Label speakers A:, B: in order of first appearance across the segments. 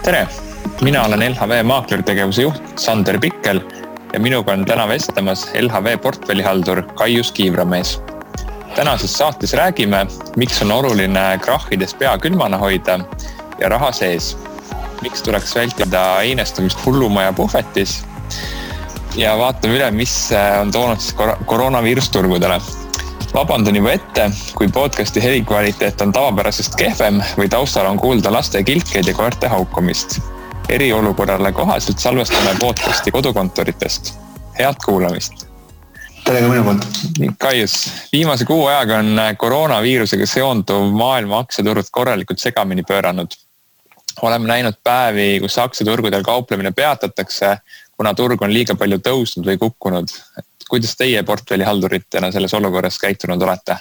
A: Tere! Mina olen LHV maaklertegevuse juht Sander Pikkel ja minuga on täna vestlemas LHV portfellihaldur Kaius Kiivramees. Tänases saates räägime, miks on oluline krahhides pea külmana hoida ja raha sees. Miks tuleks vältida einestumist hullumaja puhvetis ja vaatame üle, mis on toonud siis koroonaviirus turgudele. Vabandan juba ette, kui podcasti helikvaliteet on tavapärasest kehvem või taustal on kuulda laste kilkeid ja koerte haukumist. Eriolukorrale kohaselt salvestame podcasti kodukontoritest. Head kuulamist!
B: Tere ka minu poolt!
A: Kaius, viimase kuu ajaga on koroonaviirusega seonduv maailma aktsiaturud korralikult segamini pööranud. Oleme näinud päevi, kus aktsiaturgudel kauplemine peatatakse, kuna turg on liiga palju tõusnud või kukkunud. Kuidas teie portfellihalduritena selles olukorras käitunud olete?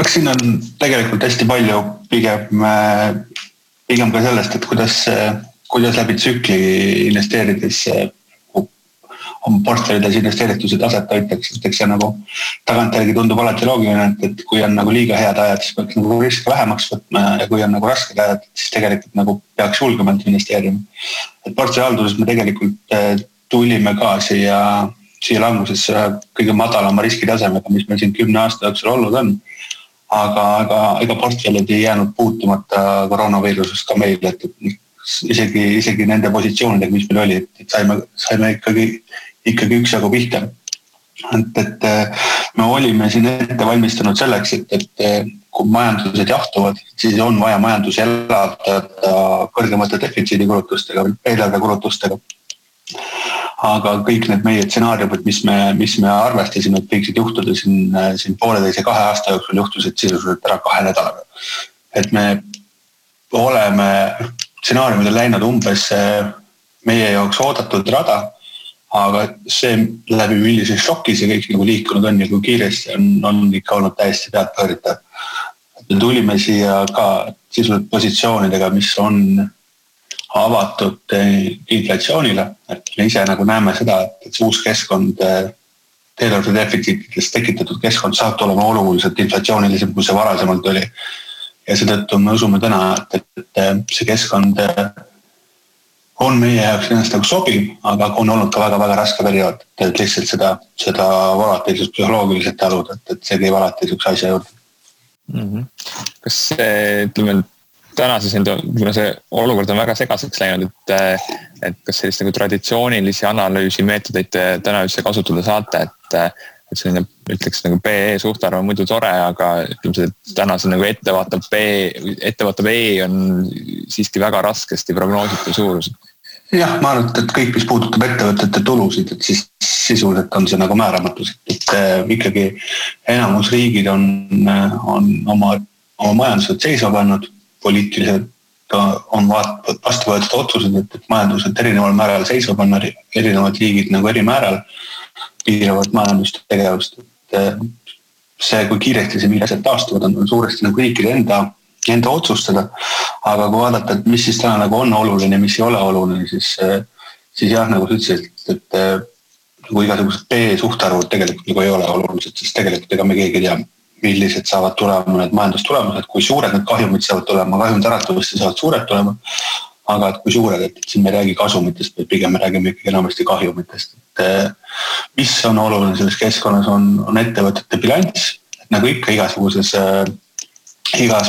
B: Eks siin on tegelikult hästi palju pigem ka sellest, et kuidas läbi tsükli investeerides oma portfellides investeeritused aset hoitakse. Eks see nagu tagantjärgi tundub alati loogiline, et kui on nagu liiga head ajad, siis peaks nagu riske vähemaks võtma ja kui on nagu rasked ajad, siis tegelikult nagu peaks julgemalt investeerima. Et portfellihalduses me tegelikult tulime ka siia langusesse kõige madalama riskitasemega, mis meil siin 10 aasta jooksul olnud on. Aga portfellid ei jäänud puutumata koroonaviirusest ka meile, et isegi nende positsioonidega, mis meil oli, et saime ikkagi üksjagu pihta. Et me olime siin ette valmistunud selleks, et kui majandused jahtuvad, siis on vaja majandus elavdada kõrgemate defitsiidikulutustega, eelarvekulutustega. Aga kõik need meie stsenaariumid, mis me arvestasime, et võiksid juhtuda siin 1,5-2 aasta jooksul juhtusid sisuliselt ära 2 nädalaga. Et me oleme stsenaariumidel läinud umbes meie jaoks oodatud rada, aga see läbi millises šokis ja kõik nagu liikunud on ja kui kiiresti on ikka olnud täiesti peadpööritav. Me tulime siia ka sisuliselt positsioonidega, mis on avatud inflatsioonile, et me ise nagu näeme seda, et see uus keskkond, eelarve defitsiitidest tekitatud keskkond saab tulema oluliselt inflatsioonilisem, kui see varasemalt oli. Ja seetõttu me usume täna, et see keskkond on meie jaoks ennast nagu sobiv, aga on olnud ka väga-väga raske periood, et lihtsalt seda volatiilsust psühholoogiliselt taluda, et see käib alati üks asja juurde.
A: Kas see, ütleme, tänases, kuna see olukord on väga segaseks läinud, et kas sellist nagu traditsioonilisi analüüsi meetodeid täna üldse kasutada saate, et selline, ütleks nagu PE suhtarv on muidu tore, aga ütleme see, et täna see nagu ettevaatav E on siiski väga raskesti prognoositav suurus.
B: Jah, ma arvan, et kõik, mis puudutab ettevõtete tulusid, et siis sisuliselt on see nagu määramatus, et ikkagi enamus riigid on oma majandused seisma pannud, poliitiliselt on vastu võetud otsused, et majandused erineval määral seisma panna, erinevad riigid nagu eri määral piiravad majandustegevust. See, kui kiiresti see asjad taastuvad, on suuresti nagu riikide enda otsustada. Aga kui vaadata, et mis siis täna nagu on oluline, mis ei ole oluline, siis jah, nagu sa ütlesid, et nagu igasugused B-suhtarvud tegelikult nagu ei ole olulised, sest tegelikult ega me keegi tea, millised saavad tulema need majandustulemused, kui suured need kahjumid saavad tulema, kahjumid äratavasti saavad suured tulema, aga et kui suured, et siin me räägi kasumitest, või pigem me räägime ikkagi enamasti kahjumitest. Et mis on oluline selles keskkonnas on ettevõtete bilanss, et nagu ikka igas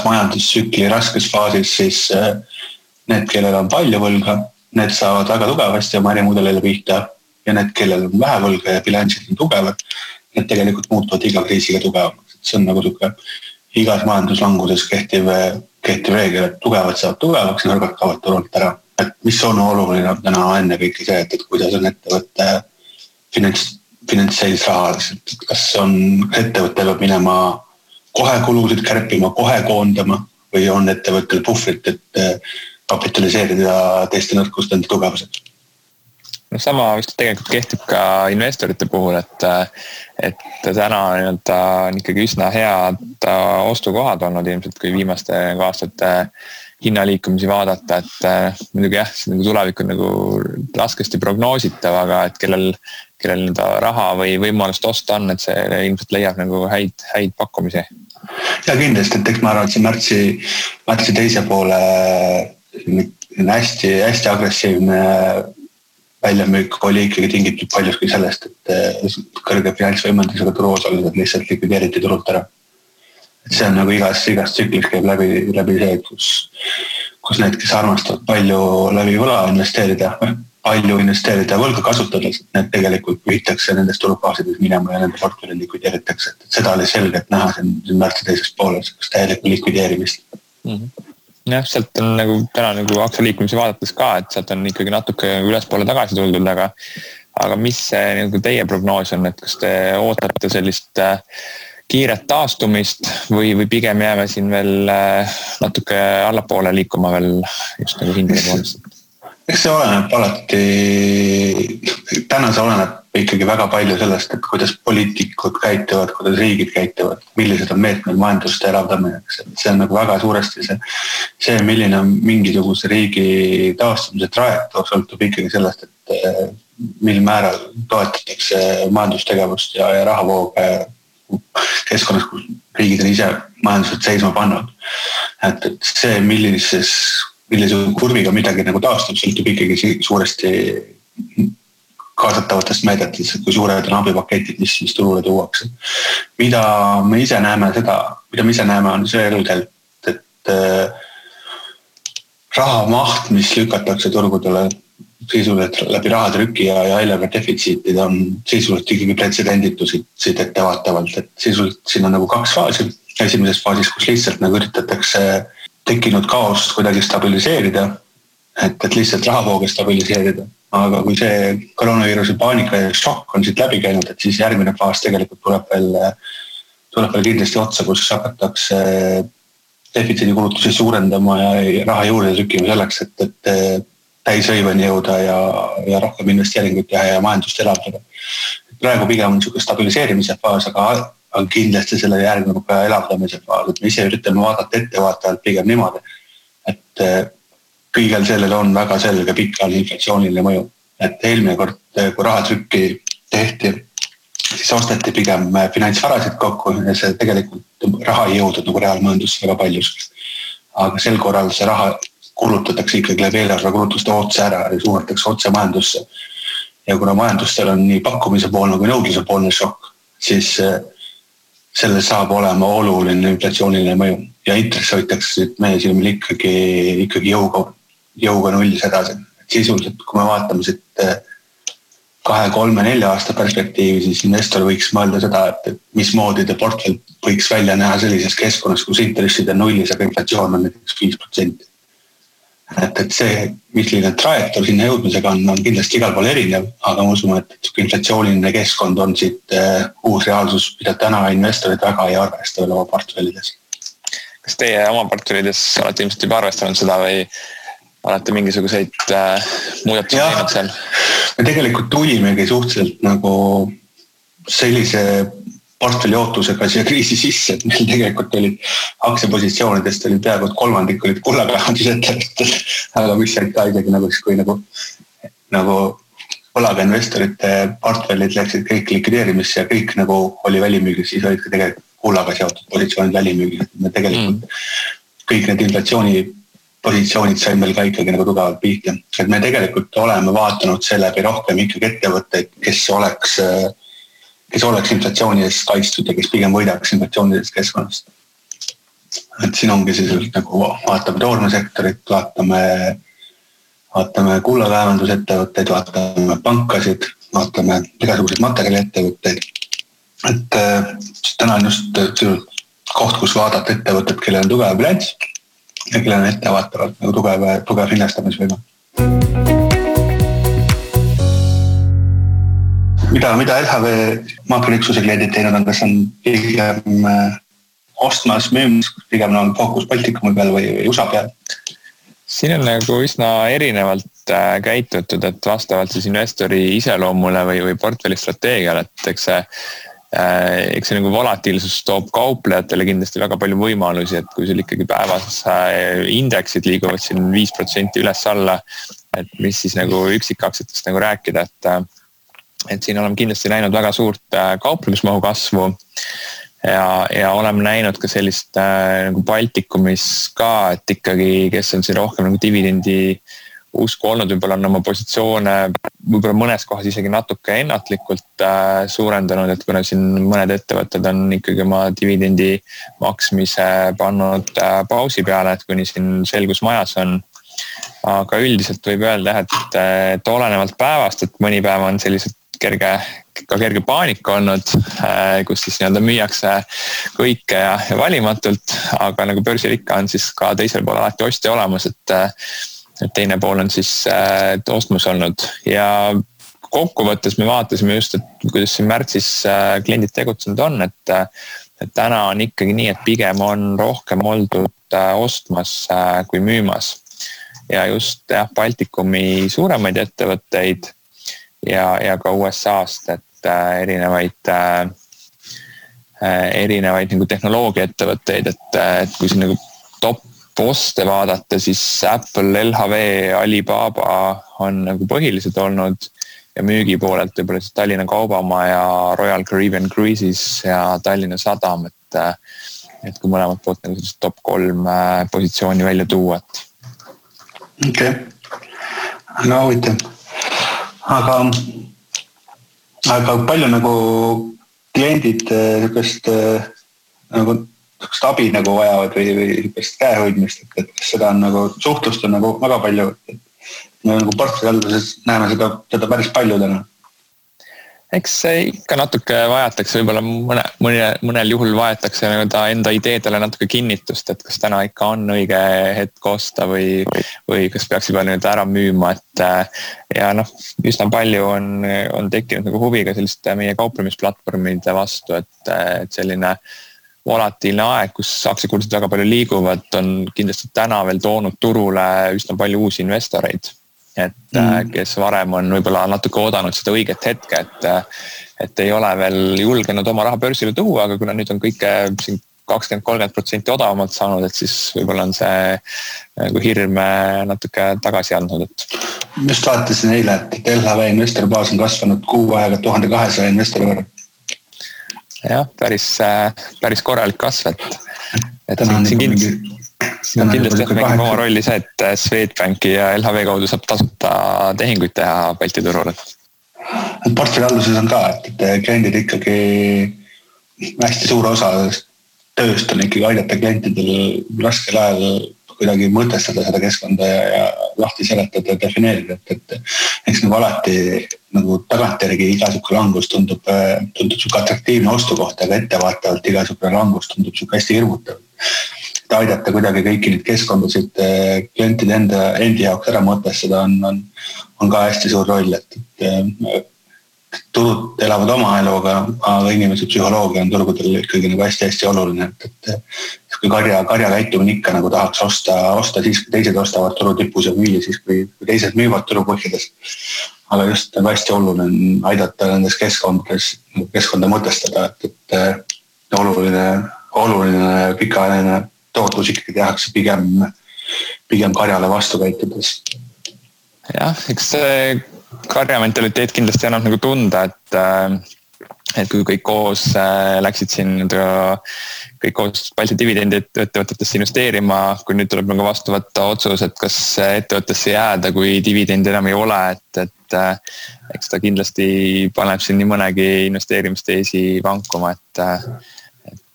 B: majandustsükli raskes faasis, siis need, kellel on palju võlga, need saavad väga tugevasti oma ärimudelile pihta ja need, kellel on vähe võlga ja bilansid on tugevad, need tegelikult muutuvad iga kriisiga tugevamaks. See on nagu igas majanduslanguses kehtiv reegel, et tugevad saavad tugevaks ja nõrgad kaovad turult ära. Et mis on oluline täna enne kõike see, et kuidas on ettevõtte finantseis rahaliselt, et kas on ettevõte peab minema kohe kulusid kärpima, kohe koondama või on ettevõttel puhvrit, et kapitaliseerida teiste nõrkust enda tugevused.
A: No sama vist tegelikult kehtib ka investorite puhul, et täna on ikkagi üsna head ostukohad olnud ilmselt, kui viimaste aastate hinnaliikumisi vaadata, et muidugi jah, see nagu tulevik on nagu raskesti prognoositav, aga et kellel nii raha või võimalust osta on, et see ilmselt leiab nagu häid pakkumisi.
B: Ja kindlasti, et eks ma arvan, et see märtsi teise poole hästi agressiivne väljamüük oli ikkagi tingitud paljuski sellest, et kõrge finantsvõimendusega turuosalised lihtsalt likvideeriti turult ära. Et see on nagu igas tsüklis käib läbi see, kus need, kes armastavad palju läbi võla investeerida võlga kasutades, need tegelikult pühitakse nendest turufaasidest minema ja nende portfellid likvideeritakse. Et seda oli selgelt näha siin märtsi teisest pooles, kas täielikku likvideerimist.
A: Jah, sealt on nagu täna nagu aktsialiikumisi vaadates ka, et sealt on ikkagi natuke ülespoole tagasi tuldud, aga mis see nagu teie prognoos on, et kas te ootate sellist kiiret taastumist või pigem jääme siin veel natuke allapoole liikuma veel just nagu hindade poolest?
B: Eks see oleneb alati, täna see oleneb ikkagi väga palju sellest, et kuidas poliitikud käituvad, kuidas riigid käituvad, millised on meetmed majandust elavdamiseks. See on nagu väga suuresti see, milline on mingisuguse riigi taastumise trajektoor, sõltub ikkagi sellest, et mil määral toetatakse majandustegevust ja rahavooge keskkonnas, kus riigid on ise majandused seisma pannud. Et see, millise kurviga midagi nagu taastub, sõltub ikkagi suuresti kaasatavatest meedetest, kui suured on abipaketid, mis turule tuuakse. Mida me ise näeme on selgelt, et raha maht, mis lükatakse turgudele sisuliselt läbi rahatrüki ja eelarve defitsiitid on sisuliselt ikkagi pretsedenditusid ettevaatavalt, et sisuliselt siin on nagu 2 faasi. Esimeses faasis, kus lihtsalt nagu üritatakse tekkinud kaost kuidagi stabiliseerida, et lihtsalt rahavooge stabiliseerida. Aga kui see koroonaviiruse paanika ja šokk on siit läbi käinud, et siis järgmine faas tegelikult tuleb veel kindlasti otsa, kus hakatakse defitsiidi kulutusi suurendama ja raha juurde trükkima selleks, et täishõiveni jõuda ja rohkem investeeringuid teha ja majandust elavdada. Praegu pigem on niisugune stabiliseerimise faas, aga kindlasti selle järgneb ka elavdamise faas, et me ise üritame vaadata ettevaatavalt pigem niimoodi, et kõigel sellel on väga selge pikaajaline inflatsiooniline mõju. Et eelmine kord, kui rahatrükki tehti, siis osteti pigem finantsvarasid kokku ja see tegelikult raha ei jõudnud nagu reaalmajandusse väga paljus. Aga sel korral see raha kulutatakse ikkagi läbi eelarve kulutuste otse ära ja suunatakse otse majandusse. Ja kuna majandustel on nii pakkumise poolne kui nõudluse poolne šokk, siis selle saab olema oluline inflatsiooniline mõju ja intress hoitakse meie silmil ikkagi jõuga nullis edasi. Sisuliselt, kui me vaatame siit 2, 3, 4 aasta perspektiivi, siis investor võiks mõelda seda, et mismoodi te portfell võiks välja näha sellises keskkonnas, kus intressid on nullis, aga inflatsioon on näiteks 5%. Et see, milline trajektoor sinna jõudmisega on kindlasti igal pool erinev, aga ma usun, et inflatsiooniline keskkond on siit uus reaalsus, mida täna investorid väga ei arvesta veel oma portfellides.
A: Kas teie oma portfellides olete ilmselt juba arvestanud seda või olete mingisuguseid muudatusi teinud seal?
B: Me tegelikult tulimegi suhteliselt nagu sellise portfelli ootusega siia kriisi sisse, et meil tegelikult olid aktsiapositsioonidest oli peaaegu 3% olid kullakaevandusettevõtted, aga mis said ka isegi nagu võlaga investorite portfellid läksid kõik likvideerimisse ja kõik nagu oli välimüügis, siis olid ka tegelikult kullaga seotud positsioonid välimüügis. Me tegelikult kõik need inflatsiooni positsioonid said meil ka ikkagi nagu tugevalt pihta. Et me tegelikult oleme vaatanud seeläbi rohkem ikkagi ettevõtteid, kes oleks inflatsiooni eest kaitstud ja kes pigem võidaks inflatsioonidest keskkonnast. Et siin ongi siis nagu vaatame toormesektorit, vaatame kullakaevandusettevõtteid, vaatame pankasid, vaatame igasuguseid materjaliettevõtteid. Et täna on just koht, kus vaadata ettevõtted, kellel on tugev bilanss ja kellel on ettevaatavalt nagu tugev hinnastamisvõime. Mida LHV maakroniksuse kliendid teinud on, kas on pigem ostmas, müümas, pigem on fookus Baltikumi peal või USA peal?
A: Siin on nagu üsna erinevalt käitutud, et vastavalt siis investori iseloomule või portfelli strateegiale, et eks see eks see nagu volatiilsus toob kauplejatele kindlasti väga palju võimalusi, et kui sul ikkagi päevas indeksid liiguvad siin 5% üles-alla, et mis siis nagu üksikaktsiatest nagu rääkida, et siin oleme kindlasti näinud väga suurt kauplemismahu kasvu ja oleme näinud ka sellist nagu Baltikumis ka, et ikkagi, kes on siin rohkem nagu dividendi usku olnud, võib-olla on oma positsioone võib-olla mõnes kohas isegi natuke ennatlikult suurendanud, et kuna siin mõned ettevõtted on ikkagi oma dividendi maksmise pannud pausi peale, et kuni siin selgus majas on. Aga üldiselt võib öelda, et olenevalt päevast, et mõni päev on sellised kerge paanika olnud, kus siis nii-öelda müüakse kõike ja valimatult, aga nagu börsil ikka on siis ka teisel pool alati ostja olemas, et teine pool on siis ostmus olnud ja kokkuvõttes me vaatasime just, et kuidas siin märtsis kliendid tegutsenud on, et täna on ikkagi nii, et pigem on rohkem oldud ostmas kui müümas ja just Baltikumi suuremaid ettevõtteid ja ka USA-st, et erinevaid nagu tehnoloogiaettevõtteid, et kui siin nagu top poste vaadata, siis Apple, LHV, Alibaba on nagu põhilised olnud ja müügipoolelt võib-olla siis Tallinna Kaubamaja, Royal Caribbean Cruises ja Tallinna Sadam, et kui mõlemad poolt nagu sellist top 3 positsiooni välja tuua.
B: Okei, aga huvitav. Aga palju nagu kliendid nagu abi nagu vajavad või käehoidmist, et kas seda on nagu suhtlust on nagu väga palju, et me nagu portfellihalduses näeme seda päris palju täna.
A: Eks ikka natuke vajatakse, võib-olla mõnel juhul vajatakse enda ideedele natuke kinnitust, et kas täna ikka on õige hetk osta või kas peaks juba nüüd ära müüma, et ja üsna palju on tekkinud nagu huvi ka selliste meie kauplemisplatvormide vastu, et selline volatiilne aeg, kus aktsiakursid väga palju liiguvad, on kindlasti täna veel toonud turule üsna palju uusi investoreid, et kes varem on võib-olla natuke oodanud seda õiget hetke, et ei ole veel julgenud oma raha börsile tuua, aga kuna nüüd on kõike siin 20-30% odavamalt saanud, et siis võib-olla on see nagu hirm natuke tagasi andnud.
B: Just vaatasin eile, et LHV investoribaas on kasvanud kuu aega 1200 investori võrra.
A: Jah, päris korralik kasv, et siin kindlasti mängib oma rolli see, et Swedbanki ja LHV kaudu saab tasuta tehinguid teha Balti turul.
B: Portfellihalduses on ka, et kliendid ikkagi hästi suur osa tööst on ikkagi aidata klientidel raskel ajal kuidagi mõtestada seda keskkonda ja lahti seletada ja defineerida, et eks nagu alati nagu tagantjärgi igasugune langus tundub suke atraktiivne ostukoht, aga ettevaatavalt igasugune langus tundub suke hästi hirmutav. Et aidata kuidagi kõiki neid keskkondasid klientide endi jaoks ära mõtestada on ka hästi suur roll, et turud elavad oma eluga, aga inimese psühholoogia on turgudel ikkagi nagu hästi oluline, et kui karja käitumine ikka nagu tahaks osta siis, kui teised ostavad turu tipus ja müüa siis, kui teised müüvad turu põhjades. Aga just nagu hästi oluline on aidata nendes keskkonda mõtestada, et oluline pikaajaline tootlus ikkagi tehakse pigem karjale vastu käitudes.
A: Jah, eks see karjamentaliteet kindlasti annab nagu tunda, et kui kõik koos läksid siin kõik koos Balti dividendi ettevõtetesse investeerima, kui nüüd tuleb nagu vastu võtta otsus, et kas ettevõttesse jääda, kui dividendi enam ei ole, et eks ta kindlasti paneb siin nii mõnegi investeerimisteesi vankuma, et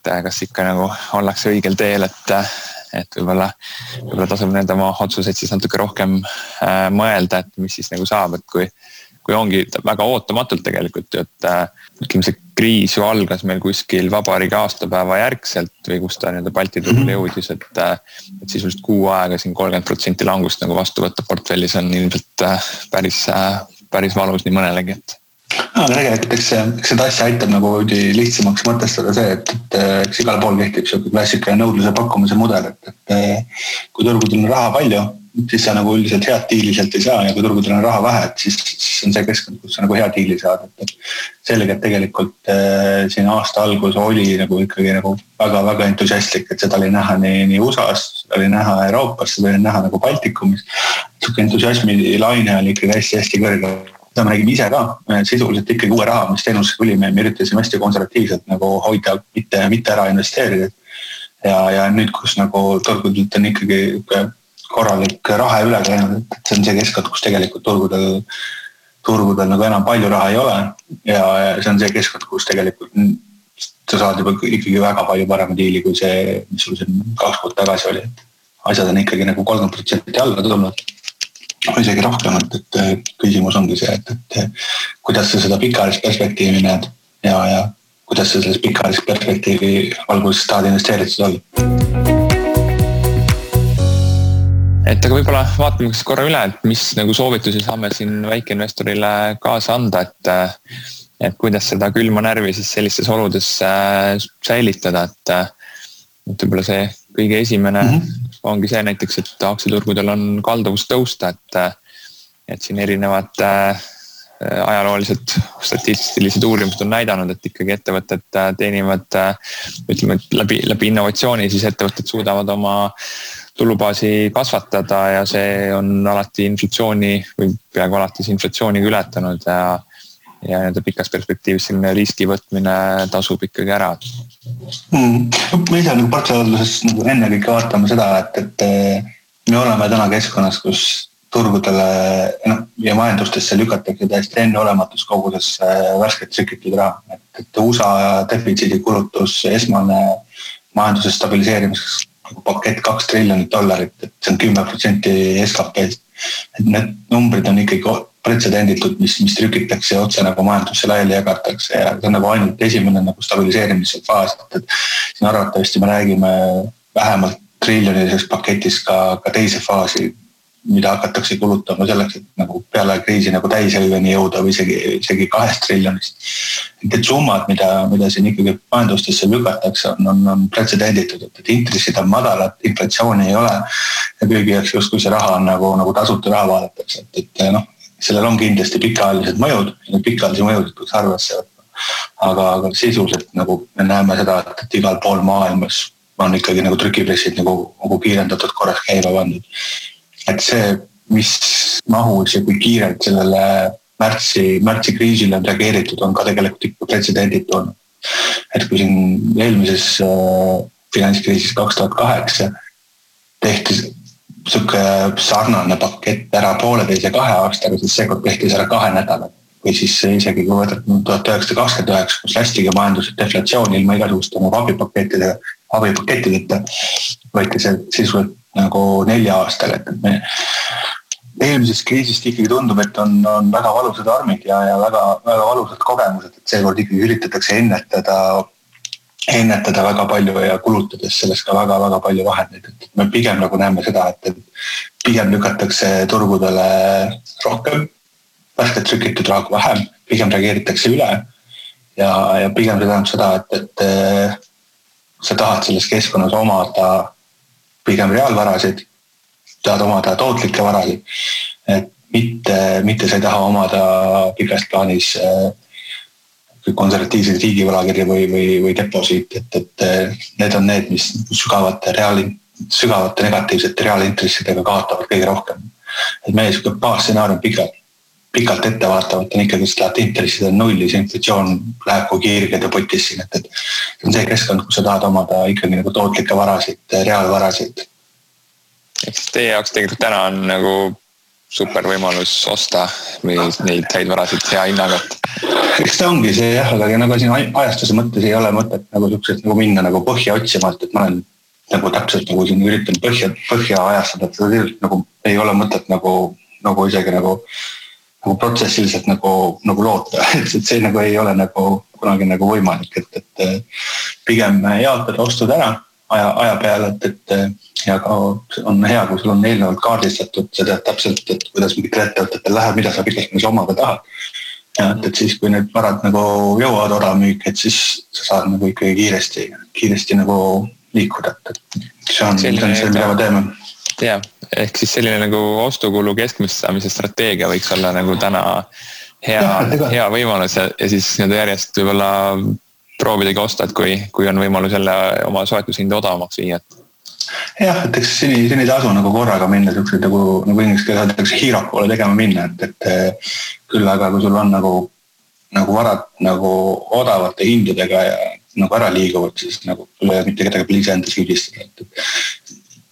A: kas ikka nagu ollakse õigel teel, et võib-olla tasub nende oma otsuseid siis natuke rohkem mõelda, et mis siis nagu saab, et kui ongi väga ootamatult tegelikult, et ütleme see kriis ju algas meil kuskil vabariigi aastapäeva järgselt või kus ta Balti turule jõudis, et sisuliselt kuu aega siin 30% langust nagu vastu võtta portfellis on ilmselt päris valus nii mõnelegi, et
B: aga tegelikult eks seda asja aitab nagu lihtsamaks mõtestada see, et eks igal pool kehtib selline klassikaline nõudluse pakkumise mudel, et kui turgudel on raha palju siis sa nagu üldiselt head diili sealt ei saa ja kui turgudel on raha vähe, et siis on see keskkond, kus sa nagu hea diili saad. Et sellega, et tegelikult siin aasta algus oli nagu ikkagi nagu väga-väga entusiastlik, et seda oli näha nii USA-s, seda oli näha Euroopas, seda oli näha nagu Baltikumis. Suke entusiasmi laine oli ikkagi hästi kõrge. Seda me nägime ise ka, sisuliselt ikkagi uue raha, mis teenusesse tuli, me üritasime hästi konservatiivselt nagu hoida, mitte ära investeerida. Ja nüüd, kus nagu turgudelt on ikkagi korralik raha üle käinud, et see on see keskkond, kus tegelikult turgudel nagu enam palju raha ei ole ja see on see keskkond, kus tegelikult sa saad juba ikkagi väga palju parema diili kui see, mis sul siin 2 kuud tagasi oli. Et asjad on ikkagi nagu 30% alla tulnud. Isegi rohkem, et küsimus ongi see, et kuidas sa seda pikaajalist perspektiivi näed ja kuidas sa selles pikaajalist perspektiivi valguses tahad investeeritud olla.
A: Et aga võibolla vaatame korra üle, et mis nagu soovitusi saame siin väikeinvestorile kaasa anda, et kuidas seda külma närvi siis sellistes oludes säilitada, et võibolla see kõige esimene ongi see näiteks, et aktsiaturgudel on kalduvus tõusta, et siin erinevad ajaloolised statistilised uurimused on näidanud, et ikkagi ettevõtted teenivad, ütleme, läbi innovatsiooni, siis ettevõtted suudavad oma tulubaasi kasvatada ja see on alati inflatsiooni või peaaegu alati inflatsiooniga ületanud ja pikas perspektiivis selline riski võtmine tasub ikkagi ära.
B: Me ise nagu portfellihalduses nagu enne kõike vaatame seda, et me oleme täna keskkonnas, kus turgudele ja majandustesse lükatakse täiesti enneolematus koguses värsket trükitud raha. Et USA defitsiidi kulutus esmane majanduse stabiliseerimiseks pakett $2 triljonit, et see on 10% SKP-st. Et need numbrid on ikkagi pretsedenditud, mis trükitakse otse nagu majandusse laiali jagatakse ja see on nagu ainult esimene nagu stabiliseerimise faas. Et siin arvatavasti me räägime vähemalt triljoniliseks paketist ka teise faasi, mida hakatakse kulutama selleks, et nagu peale kriisi nagu täishelveni jõuda või isegi 2 triljonist. Et summad, mida siin ikkagi majandustesse lükatakse, on pretsedenditud, et intressid on madalad, inflatsiooni ei ole ja kõigi jaoks justkui see raha on nagu tasuta raha vaadatakse. Et sellel on kindlasti pikaajalised mõjud ja need pikaajalisi mõjud peaks arvesse võtma. Aga sisuliselt nagu me näeme seda, et igal pool maailmas on ikkagi nagu trükipressid nagu kiirendatud korras käima pandud. Et see, mis mahus ja kui kiirelt sellele märtsi kriisile on reageeritud, on ka tegelikult ikka pretsedenditu olnud. Et kui siin eelmises finantskriisis 2008 tehti suke sarnane pakett ära 1,5 ja 2 aastaga, siis seekord tehti ära 2 nädalat. Või siis isegi kui võtad 1929, kus lästigi majandused deflatsiooni ilma igasuguste abipakettideta, võeti see sisuliselt nagu 4 aastaga. Et me eelmisest kriisist ikkagi tundub, et on väga valusad armid ja väga, väga valusad kogemused, et seekord ikkagi üritatakse ennetada väga palju ja kulutades sellest ka väga, väga palju vahendeid. Et me pigem nagu näeme seda, et pigem lükatakse turgudele rohkem, värsket trükitud raha vähem, pigem reageeritakse üle ja pigem see tähendab seda, et sa tahad selles keskkonnas omada pigem reaalvarasid, tahad omada tootlikke varasid, et mitte sa ei taha omada pikast plaanis konservatiivseid riigivõlakirja või deposiit, et need on need, mis sügavate negatiivsete reaalintressidega kaotavad kõige rohkem. Et meie baasstsenaarium pikalt ettevaatavalt on ikkagi, et intressid on nullis, inflatsioon läheb kui kiirgede potis siin, et see on see keskkond, kus sa tahad omada ikkagi nagu tootlikke varasid, reaalvarasid.
A: Eks teie jaoks tegelikult täna on nagu super võimalus osta või neid häid varasid hea hinnaga.
B: Eks ta ongi see jah, aga nagu siin ajastuse mõttes ei ole mõtet nagu sellised nagu minna nagu põhja otsimalt, et ma olen nagu täpselt nagu siin üritan põhja ajastada, et seda nagu ei ole mõtet nagu isegi nagu protsessiliselt nagu loota, et see nagu ei ole nagu kunagi nagu võimalik, et pigem jaotada ostud ära aja peale, et ja ka on hea, kui sul on eelnevalt kaardistatud, sa tead täpselt, et kuidas mingitel ettevõtetel läheb, mida sa pikalt omada tahad. Ja et siis, kui need varad nagu jõuavad odavmüük, et siis sa saad nagu ikkagi kiiresti nagu liikuda, et see on see, mida me teeme.
A: jah, ehk siis selline nagu ostukulu keskmist saamise strateegia võiks olla nagu täna hea võimalus ja siis nii-öelda järjest võib-olla proovidagi osta, et kui on võimalus jälle oma soetushinda odavamaks viia.
B: Jah, et eks siin ei tasu nagu korraga minna sellised nagu inglise keeles öeldakse hero poole tegema minna, et küll aga kui sul on nagu varad nagu odavate hindadega ja nagu ära liiguvad, siis nagu mitte kedagi pliisi enda süüdistada, et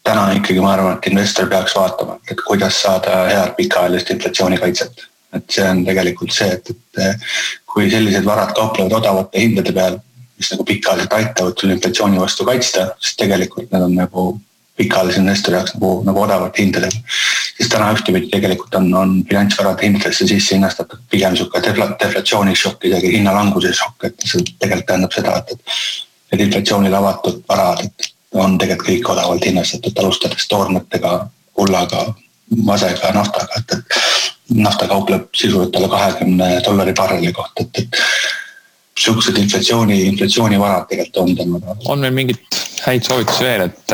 B: täna ikkagi ma arvan, et investor peaks vaatama, et kuidas saada head pikaajalist inflatsioonikaitset. Et see on tegelikult see, et kui sellised varad kauplevad odavate hindade peal, mis nagu pikaajaliselt aitavad sul inflatsiooni vastu kaitsta, siis tegelikult need on nagu pikaajalise investori jaoks nagu odavate hindadega. Siis täna ühtepidi tegelikult on finantsvarade hindadesse sisse hinnastatud pigem suke deflatsioonishokk, isegi hinnalanguse šokk, et see tegelikult tähendab seda, et inflatsioonile avatud varad on tegelikult kõik odavalt hinnastatud, alustades toormetega, kullaga, masega, naftaga, et nafta kaupleb sisuliselt alla $20 barreli kohta, et suhksed inflatsiooni varad tegelikult on tänaga.
A: On meil mingit häid soovitusi veel, et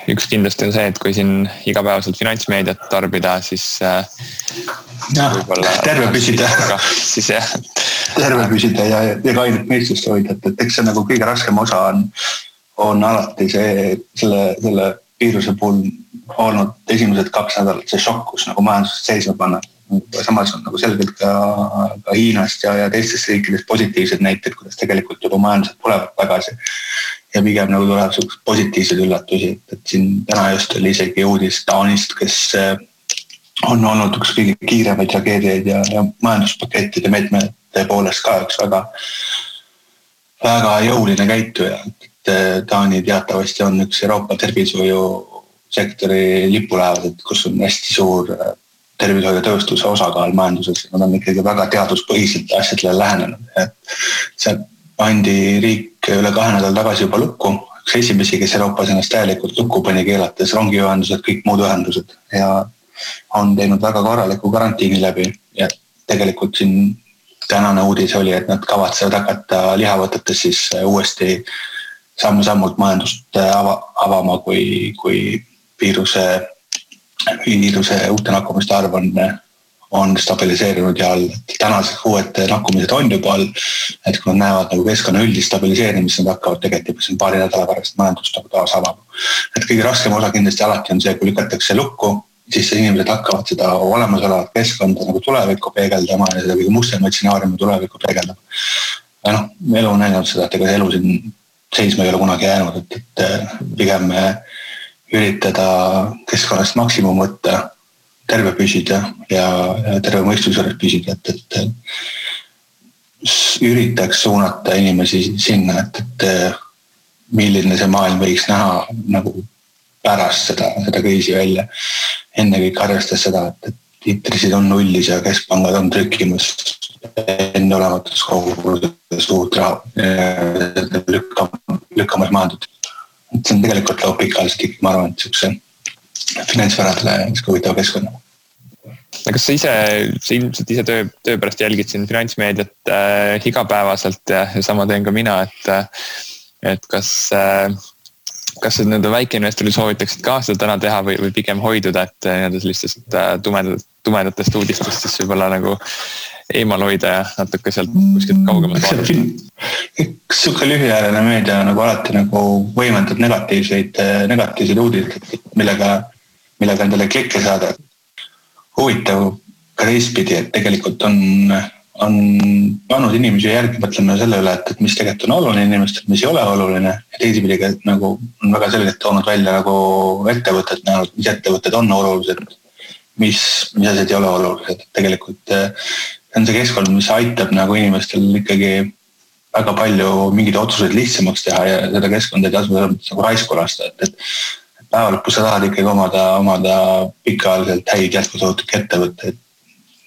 A: üks kindlasti on see, et kui siin igapäevaselt finantsmeediat tarbida, siis
B: terve püsida.
A: Siis jah.
B: Terve püsida ja kainet meestust hoida, et eks see nagu kõige raskem osa on alati selle viiruse puhul olnud esimesed 2 nädalat see šokk, kus nagu majandusest seisma panna. Samas on nagu selgelt ka Hiinast ja teistest riikidest positiivsed näited, kuidas tegelikult juba majandused tulevad tagasi. Ja pigem nagu tuleb sellised positiivsed üllatusi, et siin täna just oli isegi uudis Taanist, kes on olnud üks kõige kiiremaid tragediaid ja majanduspakettide meetmete poolest ka üks väga jõuline käituja. Taani teatavasti on üks Euroopa tervishoiusektori lipulaevad, kus on hästi suur tervishoiutööstuse osakaal majanduses. Nad on ikkagi väga teaduspõhiselt asjadele lähenenud. See pandi riik üle 2 nädal tagasi juba lukku. Üks esimesi, kes Euroopas ennast täielikult lukku pani keelates rongiühendused, kõik muud ühendused ja on teinud väga korraliku karantiini läbi. Ja tegelikult siin tänane uudis oli, et nad kavatsevad hakata lihavõtetes siis uuesti samm-sammult majandust avama, kui viiruse uute nakkumiste arv on stabiliseerinud ja all. Tänased uued nakkumised on juba all, et kui nad näevad nagu keskkonna üldist stabiliseerimist, nad hakkavad tegelikult siin paari nädala pärast majandust nagu taas avama. Et kõige raskem osa kindlasti alati on see, kui lükatakse lukku, siis inimesed hakkavad seda olemasolevat keskkonda nagu tulevikku peegeldama ja seda kõige mustemaid stsenaariume tulevikku peegeldama. Ja elu on näinud seda, et ega elu siin seisma ei ole kunagi jäänud, et pigem üritada keskkonnast maksimum võtta, terve püsida ja terve mõistusjuures püsida, et üritaks suunata inimesi sinna, et milline see maailm võiks näha nagu pärast seda kriisi välja. Enne kõik arvestas seda, et intressid on nullis ja keskpangad on trükkimas enne olematus kogudes suurt raha lükkamas maandud. See on tegelikult laup pikaliselt ikkagi, ma arvan, et niisuguse finantsvaradele huvitav keskkonna.
A: Kas sa ilmselt ise töö pärast jälgid siin finantsmeediat igapäevaselt ja sama teen ka mina, et kas nende väikeinvestorid soovitaksid ka seda täna teha või pigem hoiduda, et sellistest tumedatest uudistest siis võib-olla nagu eemal hoida ja natuke sealt kuskilt kaugemalt vaadata?
B: Üks suke lühiajaline meedia nagu alati nagu võimendab negatiivseid uudiseid, millega endale klikke saada. Huvitav ka teistpidi, et tegelikult on pannud inimesi järgi mõtlema selle üle, et mis tegelikult on oluline inimestel, mis ei ole oluline. Ja teisipidi nagu on väga selgelt toonud välja nagu ettevõtted näenud, mis ettevõtted on olulised, mis asjad ei ole olulised. Tegelikult on see keskkond, mis aitab nagu inimestel ikkagi väga palju mingeid otsuseid lihtsamaks teha ja seda keskkonda ei tasu nagu raisku lasta. Et päeva lõpus sa tahad ikkagi omada pikaajaliselt häid jätkusuutlikke ettevõtteid.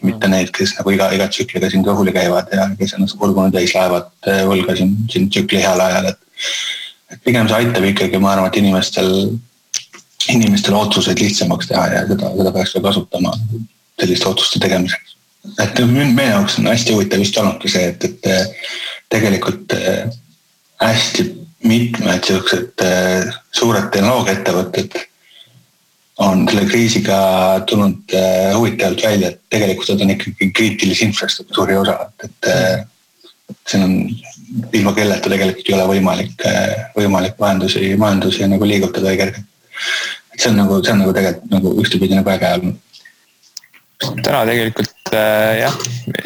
B: Mitte neid, kes nagu iga tsükliga siin kõhuli käivad ja kes ennast kurgunud täis laevad võlga siin tsükli heal ajal. Et pigem see aitab ikkagi, ma arvan, et inimestel otsuseid lihtsamaks teha ja seda peaks ka kasutama selliste otsuste tegemiseks. Et meie jaoks on hästi huvitav just olnudki see, et tegelikult hästi mitmed sellised suured tehnoloogiaettevõtted on selle kriisiga tulnud huvitavalt välja, et tegelikult on ikkagi kriitilise infrastruktuuri osa, et see on ilma kelleta tegelikult ei ole võimalik majandusi nagu liigutada kergelt. Et see on nagu tegelikult nagu ühtepidi nagu äge olnud.
A: Täna tegelikult jah,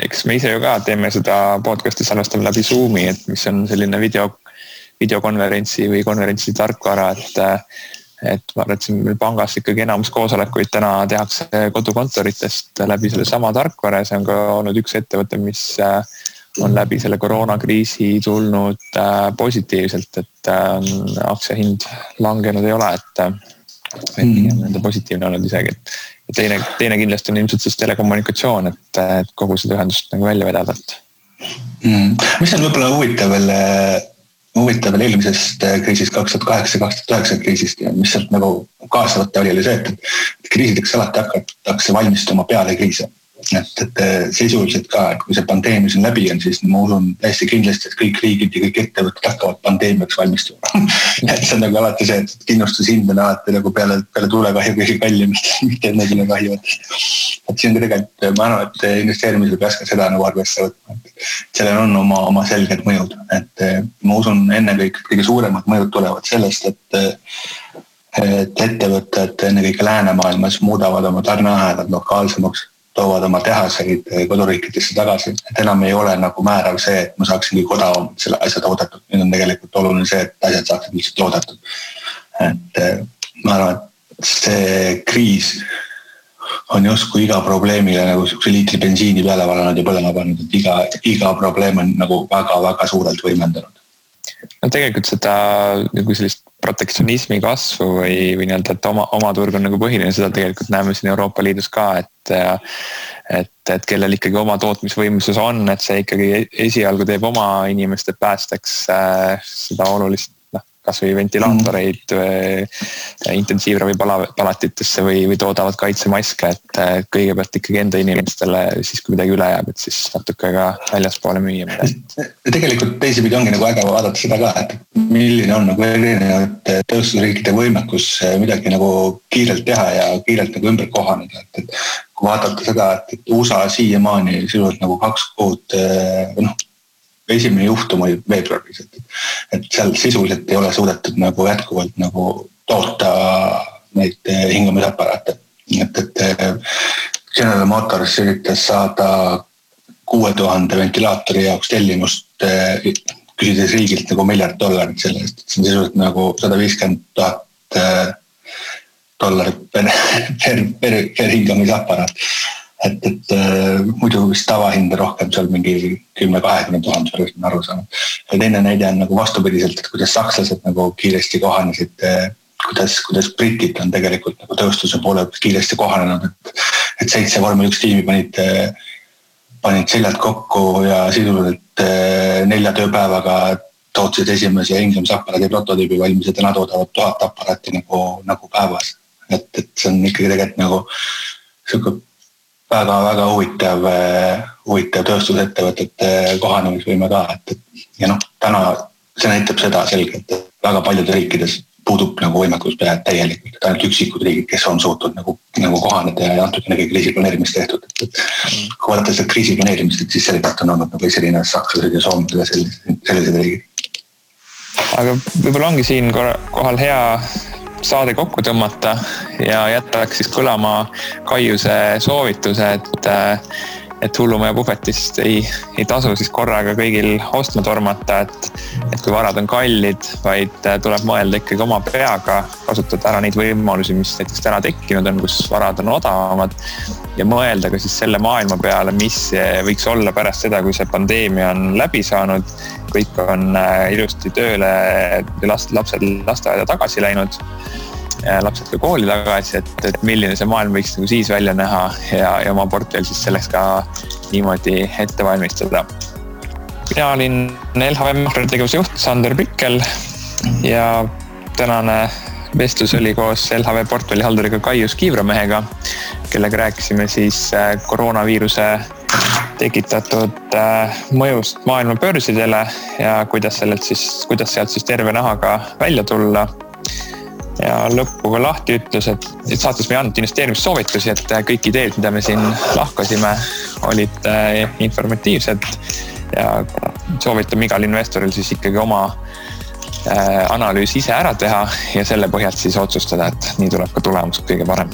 A: eks me ise ju ka teeme seda podcasti salvestame läbi Zoomi, et mis on selline videokonverentsi või konverentsi tarkvara, et ma arvan, et siin meil pangas ikkagi enamus koosolekuid täna tehakse kodukontoritest läbi selle sama tarkvara ja see on ka olnud üks ettevõte, mis on läbi selle koroonakriisi tulnud positiivselt, et aktsia hind langenud ei ole, et nende positiivne olnud isegi. Ja teine kindlasti on ilmselt siis telekommunikatsioon, et kogu seda ühendust nagu välja vedada.
B: Mis on võib-olla huvitav veel eelmisest kriisist 2008-2009 kriisist ja mis sealt nagu kaasavate oli see, et kriisideks alati hakatakse valmistuma peale kriise. Et sisuliselt ka, et kui see pandeemia siin läbi on, siis ma usun täiesti kindlasti, et kõik riigid ja kõik ettevõtted hakkavad pandeemiaks valmistuma. Et see on nagu alati see, et kindlustushind on alati nagu peale tuulekahju kõige kallimist, mitte enne kahjuvatest. Et siin tegelikult, ma arvan, et investeerimisel peaks ka seda nagu arvesse võtma. Sellel on oma selged mõjud, et ma usun ennekõike kõige suuremad mõjud tulevad sellest, et ettevõtted ennekõike läänemaailmas muudavad oma tarneahelad lokaalsemaks, toovad oma tehaseid koduriikidesse tagasi, et enam ei ole nagu määrav see, et ma saaksin kõik odavamalt selle asja toodetud. Nüüd on tegelikult oluline see, et asjad saaksid lihtsalt toodetud. Et ma arvan, et see kriis on justkui iga probleemile nagu liitri bensiini peale valanud ja põlema pannud, et iga probleem on nagu väga-väga suurelt võimendanud.
A: No tegelikult seda nagu sellist protektsionismi kasvu või nii-öelda, et oma turg on nagu põhiline, seda tegelikult näeme siin Euroopa Liidus ka, et kellel ikkagi oma tootmisvõimsus on, et see ikkagi esialgu teeb oma inimeste päästeks seda olulist, kas või ventilaatoreid intensiivravi palatitesse või toodavad kaitsemaske, et kõigepealt ikkagi enda inimestele siis kui midagi üle jääb, et siis natuke ka väljaspoole müüa midagi.
B: Tegelikult teisipidi ongi nagu äge vaadata seda ka, et milline on nagu erinevate tööstusriikide võimekus midagi nagu kiirelt teha ja kiirelt nagu ümber kohaneda, et kui vaadata seda, et USA siiamaani sisuliselt nagu 2 kuud esimene juhtum oli veebruaris, et seal sisuliselt ei ole suudetud nagu jätkuvalt nagu toota neid hingamisaparaate. Et General Motors üritas saada 6000 ventilaatori jaoks tellimust, küsides riigilt nagu $1 miljard selle eest, et see on sisuliselt nagu $150,000 per hingamisaparaat. Et muidu vist tavahind rohkem seal mingi 10-20,000 võrrest on aru saanud. Ja teine näide on nagu vastupidiselt, et kuidas sakslased nagu kiiresti kohanesid, kuidas britid on tegelikult nagu tööstuse poole kiiresti kohanenud, et 7 vormel 1 tiimi panid seljad kokku ja sisuliselt 4 tööpäevaga tootsid esimese hingamisaparaadi prototüübi valmis ja täna toodavad 1000 aparaati nagu päevas. Et see on ikkagi tegelikult nagu selline väga-väga huvitav tööstusettevõtete kohanemisvõime ka, ja täna see näitab seda selgelt, et väga paljudes riikides puudub nagu võimekus täielikult, et ainult üksikud riigid, kes on suutnud nagu kohaneda ja antud ennegi kriisiplaneerimist tehtud. Kui vaadata seda kriisiplaneerimist, siis selgelt on olnud nagu selline sakslased ja soomlased ja sellised riigid.
A: Aga võib-olla ongi siin kohal hea saade kokku tõmmata ja jätaks siis kõlama Kaiuse soovituse, et hullumaja puhvetist ei tasu siis korraga kõigil ostma tormata, et kui varad on kallid, vaid tuleb mõelda ikkagi oma peaga, kasutada ära neid võimalusi, mis näiteks täna tekkinud on, kus varad on odavamad ja mõelda ka siis selle maailma peale, mis võiks olla pärast seda, kui see pandeemia on läbi saanud, kõik on ilusti tööle, lapsed lasteaeda tagasi läinud, lapsed ka kooli tagasi, et milline see maailm võiks nagu siis välja näha ja oma portfell siis selleks ka niimoodi ette valmistada. Mina olin LHV makrotegevuse juht Sander Pikkel ja tänane vestlus oli koos LHV portfellihalduriga Kaius Kiivramehega, kellega rääkisime siis koroonaviiruse tekitatud mõjust maailma börsidele ja kuidas sealt siis terve nahaga välja tulla. ja lõppu ka lahti ütles, et saates me ei andnud investeerimissoovitusi, et kõik ideed, mida me siin lahkasime, olid informatiivsed ja soovitame igal investoril siis ikkagi oma analüüs ise ära teha ja selle põhjalt siis otsustada, et nii tuleb ka tulemus kõige parem.